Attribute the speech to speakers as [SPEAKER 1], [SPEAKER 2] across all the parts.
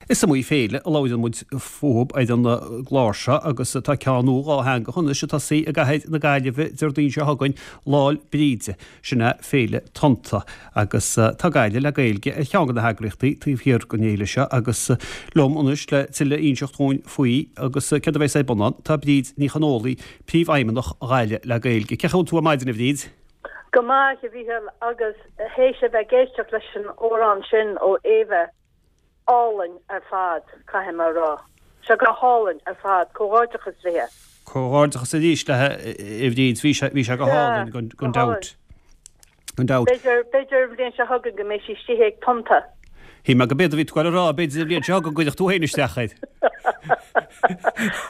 [SPEAKER 1] Is iomaí féile a labhraíonn muid fúthub ar an gclár seo agus tá ceann nua dhátheangach anois ag tosaí i gcathair na Gaillimhe Déardaoin seo chugainn, Lá'l Bríde. Sin é Féile Tonnta agus tá Gaillimh le Gaeilge ar cheann de na heagraíochtaí taobh thiar den fhéile seo agus liom anois le tuilleadh a inseacht dhúinn faoi agus céard a bheas ar bun ann tá Bríd Ní Chonfhaola, Príomhfheidhmeannach Ghaillimh le Gaeilge. Cén chaoi a bhfuil tú ar maidin a Bhríd?
[SPEAKER 2] Go maith, a Mhíchíl, agus théis a bheith ag éisteacht leis an amhrán sin ó Éabha, álainn ar fad, caithfidh mé a rá. Sé go hálainn ar fad. Comhghairdeachas léi.
[SPEAKER 1] Comhghairdeachas arís léi, a Bhríd. Bhí sé, bhí sé go hálainn, gan, gan dabht. Gan dabht.
[SPEAKER 2] B'fhéidir, b'fhéidir an bhliain seo chugainn go mbeidh sí istigh ag Tonnta.
[SPEAKER 1] Shíl mé go b'éard a bhí tú ag goil a rá, b'fhéidir an bhliain seo chugainn go gcuirfeadh tú féin isteach air.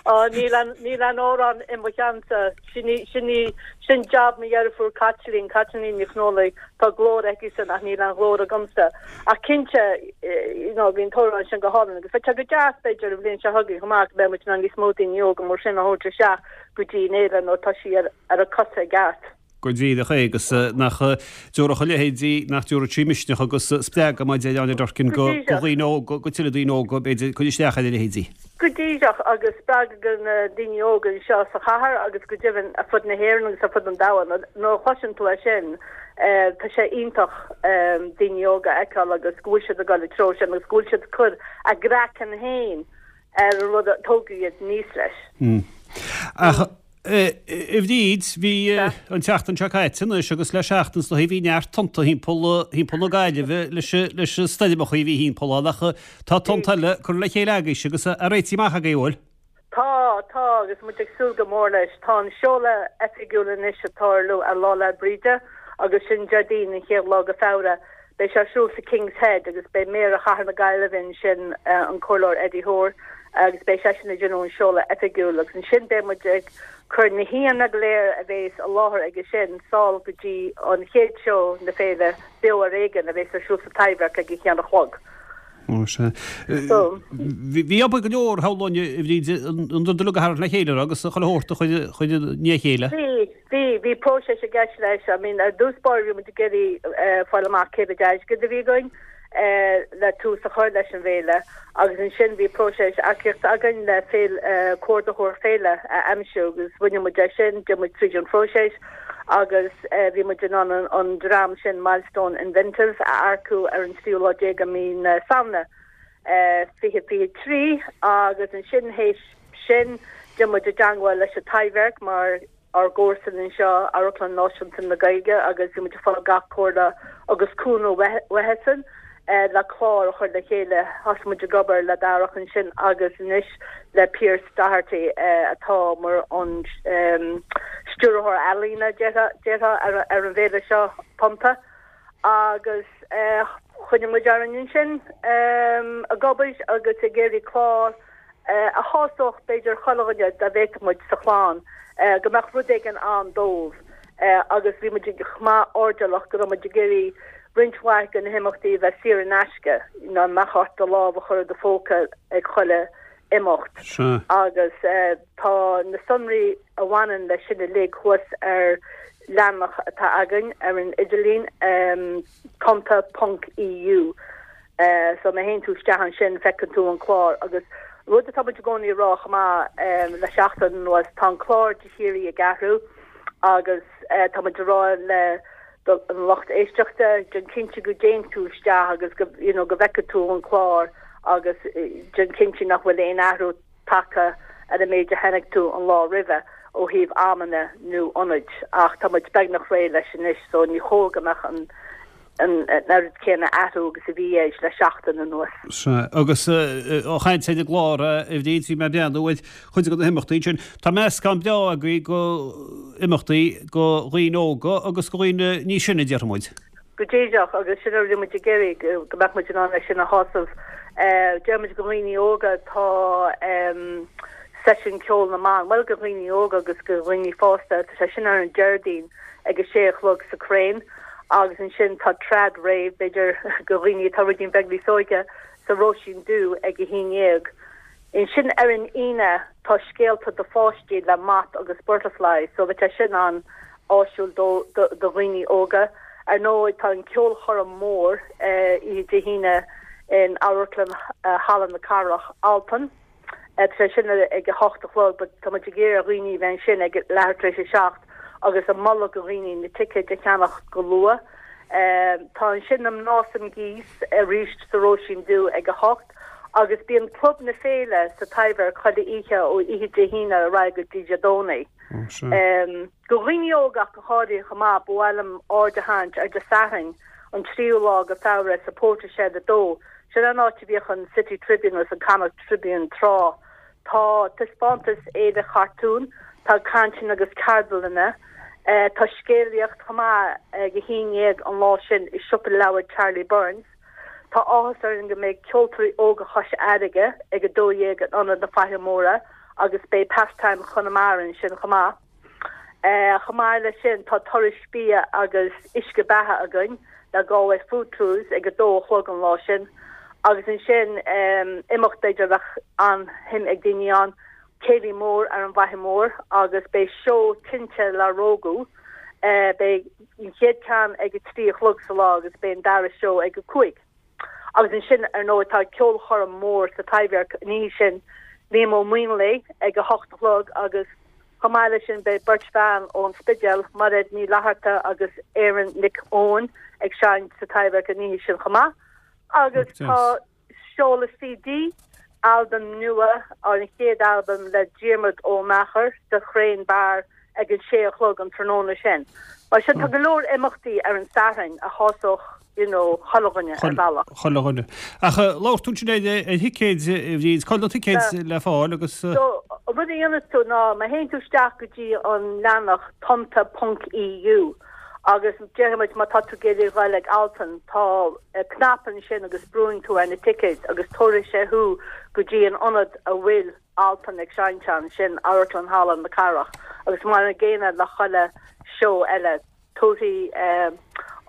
[SPEAKER 2] Á, níl an, níl an amhrán i mo cheannsa. Sin í, sin í, sin jab mo dheirfiúr Caitlín, Caitlín Ní Chonfhaola, tá glór aici-san ach níl an ghlór agamsa. Ach cinnte, you know, bhí an t-amhrán sin go hálainn agus bheadh sé go deas b'fhéidir an bhliain seo chugainn chomh maith go mbeadh muid in ann níos mó daoine óga mar sin a thabhairt isteach go dtí an fhéile nuair atá sí ar, ar a cosa i gceart.
[SPEAKER 1] Go díreach é agus nach dtabharfadh a leithéidí, nach dtabharfadh sí misneach agus spreagadh mar a deir Áine Durkin go dhaoine óga, go tuilleadh daoine óga b'fhéidir cur isteach ar a leithéidí.
[SPEAKER 2] Go díreach, agus spreagadh do na daoine óga anseo sa chathair agus go deimhin ar fud na hÉireann agus ar fud an domhain. Nuair a chloiseann tú é sin, tá sé iontach daoine óga a fheiceáil agus go bhfuil siad ag dul an treo sin agus go bhfuil siad ag cur a gcraiceann féin ar an rud a tógadh iad aníos leis.
[SPEAKER 1] Ach A Bhríd, bhí an tseachtain seo caite anois agus le seachtain is dóichí bhí neart tonnta thimpeall thimpeall na Gaillimhe leis leis na stoirmeacha a bhí thimpeall ann ach tá tonnta eile curtha le chéile agaibhse agus á réitigh amach agaibh, an bhfuil?
[SPEAKER 2] Tá, tá agus muid ag súil go mór leis. Tá an seoladh oifigiúil anois ag tarlú ar Lá 'le Bríde agus sin Déardaoin an chéad lá de Feabhra. Beidh sé ar siúl sa King's Head agus beidh Méara Chathair na Gaillimhe ansin, an Comhairleoir Eddie Hoare, agus beidh seisean ag déanamh an seoladh oifigiúil agus ansin beidh muid ag cur na haíonna go léir a bhéas i láthair aige sin sall go dtí an chéad seó na féile Beo ar Éigean a bhéas ar siúl sa Taibhdhearc ag a haon a chlog.
[SPEAKER 1] Ó sea. Bhí obair go leor shamhlóinn a Bhríd an rud uilig a tharraingt le chéile agus chuile shórt a chur i ndiaidh a chéile.
[SPEAKER 2] Bhí. Bhí, bhí próiseas i gceist leis. I mean, ar dtús báire bhí muid ag iarraidh fáil amach cé mhéad airgead a bhí againn le tús a chur leis an bhféile agus ansin bhí próiseas earcaíochta againn le féile, comhordaitheoir féile a aimsiú agus rinne muid é sin, d'imigh muid tríd an phróiseas agus bhí muid in ann an dream sin Milestone Inventive a earcú ar an tríú lá déag de mhí na Samhna 2023 agus ansin théis sin d'imigh muid i dteangmháil leis an Taibhdhearc mar ár gcomharsan anseo, Amharclann Náisiúnta na Gaeilge agus bhí muid ag fáil gach comhairle agus cúnamh uathusan le clár a chur le chéile. Thosaigh muid ag obair le Darach ansin agus anois le Pearse Doherty atá mar an stiúrthóir ealaíne, déarfá, ar an bhféile seo, Tonnta. Agus choinnigh muid orainn ansin ag obair agus ag iarraidh clár a shásódh b'fhéidir chuile dhuine dá bhféadfadh muid sa chlann, go mbeadh rud éigin ann dóibh agus bhí muid chomh maith airdeallach go raibh muid ag iarraidh roinnt mhaith de na himeachtaí a bheith saor in aisce, nach mbeadh ort do lámh a chur i do phóca ag chuile imeacht agus tá na sonraí a bhaineann leis sin uilig thuas ar leathanach atá againn ar an idirlíon, tonnta ponc EU. So má théann tú isteach ansin feiceann tú an clár agus rud atá muid i gcónaí a rá chomh maith le seachtain anuas, tá an clár de shíoraí ag athrú agus tá muid a rá le an lucht éisteachta, déan cinnte go dtéann tú isteach agus go you know go bhfeiceann tú an clár agus déan cinnte nach bhfuil aon athrú tagtha ar an méid a chonaic tú an lá roimhe ó thaobh amanna nó ionaid ach tá muid beagnach réidh leis anois so ní chóir go mbeadh an an oiread céanna athrú agus a bhí air le seachtain anuas.
[SPEAKER 1] Sea, agus á chaint ar an gclár, a Bhríd, bhí mé ag breathnú ar chuid de na himeachtaí ansin. Tá meascán breá agaibh de imeachtaí do dhaoine óga agus do dhaoine níos sine, déarfaidh muid.
[SPEAKER 2] Go díreach, agus sin a bhí muid ag iarraidh, go mbeadh muid in ann é sin a shásamh. Deir muid do dhaoine óga, tá seisiún ceoil na mban, bhuel do dhaoine óga agus do dhaoine fásta, tá sé sin ar an Déardaoin ag a sé a chlog sa Crane agus ansin tá Trad Rave, b'fhéidir do dhaoine atá ruidín beag níos óige, sa Róisín Dubh ag a haon dhéag. Ansin ar an Aoine tá scéalta do pháistí le Moth agus Butterfly so bheadh sé sin an-áisiúil do dhaoine óga. Ar ndóigh tá an ceolchoirm mór oíche Dé hAoine. in Amharclann Halla na Cathrach, Altan. Tá sé sin ag a hocht a chlog but tá muid ag iarraidh ar dhaoine a bheith ansin ag leathuair tar éis a 7 agus ag moladh do dhaoine na ticéid a cheannach go luath. Tá ansin na mná sa gcíos arís sa Róisín Dubh ag a hocht agus bíonn Club na Féile sa Taibhdhearc chuile oíche ó oíche Dé hAoine ar aghaidh go dtí Dé Domhnaigh. Do dhaoine óga ach go háirithe chomh maith, ba mhaith liom aird a tharraingt ar Dé Sathairn, an tríú lá de Feabhra sa Portershed 2. Sin an áit a bhíodh an City Tribune agus an Connacht Tribune tráth. Tá taispeántas Fhéile Chartún, tá cainteanna agus ceardlanna, tá scéalaíocht chomh maith ag a haon dhéag an lá sin i Siopa Leabhar Charlie Byrne's. Tá áthas orainn go mbeidh Ceoltóirí Óga Chois Fharraige ag 12 in Ionad na Faiche Móire agus beidh Pastime Chonamara ansin chomh maith. Chomh maith leis sin tá turais bia agus uisce beatha againn le Galway Food Tours ag 2 a chlog an lá sin agus ansin imeacht b'fhéidir a bheadh an-shuim ag daoine ann, Céilí Mór ar an bhFaiche Mhór agus beidh seó tinte le Rógú. Beidh an chéad ceann ag a 3 a chlog sa lá agus beidh an dara seó ag a 5. Agus ansin, ar ndóigh, tá ceolchoirm mhór sa Taibhdhearc an oíche sin, Liam Ó Maonlaí ag a hocht a chlog agus chomh maith leis sin beidh beirt bhean ón Spidéal, Mairéad Ní Fhlatharta agus Erin Nic Eoin ag seinnt sa Taibhdhearc an oíche sin chomh maith. Agus tá Seoladh CD, albam nua, an chéad albam le Diarmuid Ó Meachair sa Chrane Bar ag an sé a chlog an tráthnóna sin. Mar sin tá go leor imeachtaí ar an Satharn a shásódh you know chuile dhuine ar bhealach.
[SPEAKER 1] Chuile dhuine. Ach labhair tú ansin ar thicéid, a Bhríd, cá bhfuil na ticéid le fáil agus.
[SPEAKER 2] So an rud a dhéanfas tú ná má théann tú isteach go dtí an leathanach tonnta ponc EU Agus déarfaidh muid má tá tú ag iarraidh a ghoil ag Altan, tá cnaipe ansin agus brúann tú ar na ticéid agus tabharfaidh sé thú go dtí an ionad a bhfuil Altan ag seinnt ann, sin Amharclann Halla na Cathrach. Agus mar an gcéanna le chuile seó eile, tabharfaidh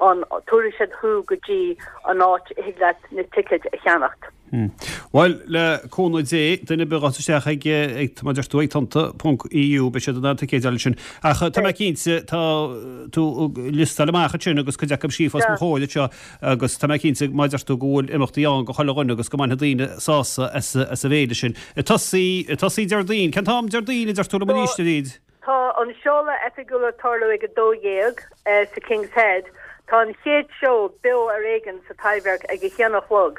[SPEAKER 2] an, tabharfaidh siad thú go dtí an áit a thig leat na ticéid a cheannacht.
[SPEAKER 1] Bhuel, le cúnamh Dé, duine ar bith a ghabhfas isteach ag, ag, mar a deir tú, ag tonnta ponc EU, beidh siad in ann ticéid a fháil ansin. Ach tá mé cinnte, tá tú ag liostáil amach ansin agus cuid acu scríofa os mo chomhair anseo agus tá mé cinnte, mar a deir tú, go bhfuil imeachtaí ann do chuile dhuine agus go mbainfidh daoine sásamh as, as an bhféile sin. Ag tosaí, ag tosaí Déardaoin, cén t-am Déardaoin a deir tú liom arís, a Bhríd?
[SPEAKER 2] Tá an seoladh oifigiúil ag tarlú ag 12 sa King's Head. Tá an chéad seó Beo ar Éigean sa Taibhdhearc ag a haon a chlog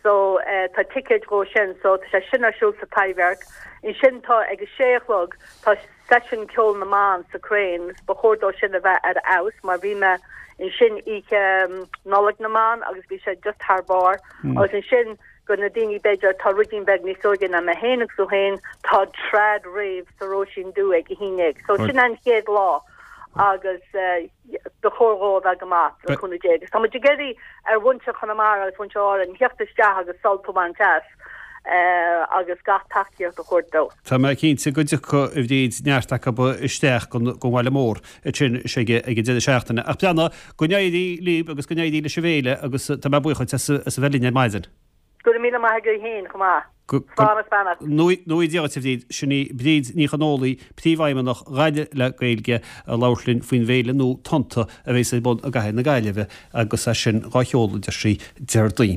[SPEAKER 2] so tá ticéid dhó sin so tá sé sin ar siúl sa Taibhdhearc. Ansin tá ag a sé a chlog tá seisiún ceol na mban sa Crane. Ba chóir dó sin a bheith ar fheabhas mar bhí mé ansin oíche Nollaig na mBan agus bhí sé just thar barr. Agus ansin Do na daoine b'fhéidir atá ruidín beag níos óige ná mé féin agus tú féin, tá Trad Rave sa Róisín Dubh ag a haon dhéag. So sin an chéad lá agus ba chóir dhó a bheith go maith, le cúnamh Dé. Agus tá muid ag iarraidh ar mhuintir Chonamara agus mhuintir Árann theacht isteach agus sult a bhaint as agus gach tacaíocht a thabhairt dó.
[SPEAKER 1] Tá mé cinnte go dtiocfaidh, a Bhríd, neart acu isteach gon bhaile mór ansin ag an deireadh seachtaine. Ach breathnaigh, Go n-éirí libh agus go n-éirí leis an bhféile agus tá mé buíoch duit as a bheith linn ar maidin.
[SPEAKER 2] Go raibh míle maith agat féin chomh maith. Slán
[SPEAKER 1] is beannacht. Go ngnóthaí Dia duit a Bhríd. Sin í Bríd Ní Chonfhaola, Príomhfheidhmeannach Ghaillimh le Gaeilge, ag labhairt linn faoin bhféile nua Tonnta a bheas ar bun i gcathair na Gaillimhe agus é sin dhá sheoladh, deir sí, Déardaoin.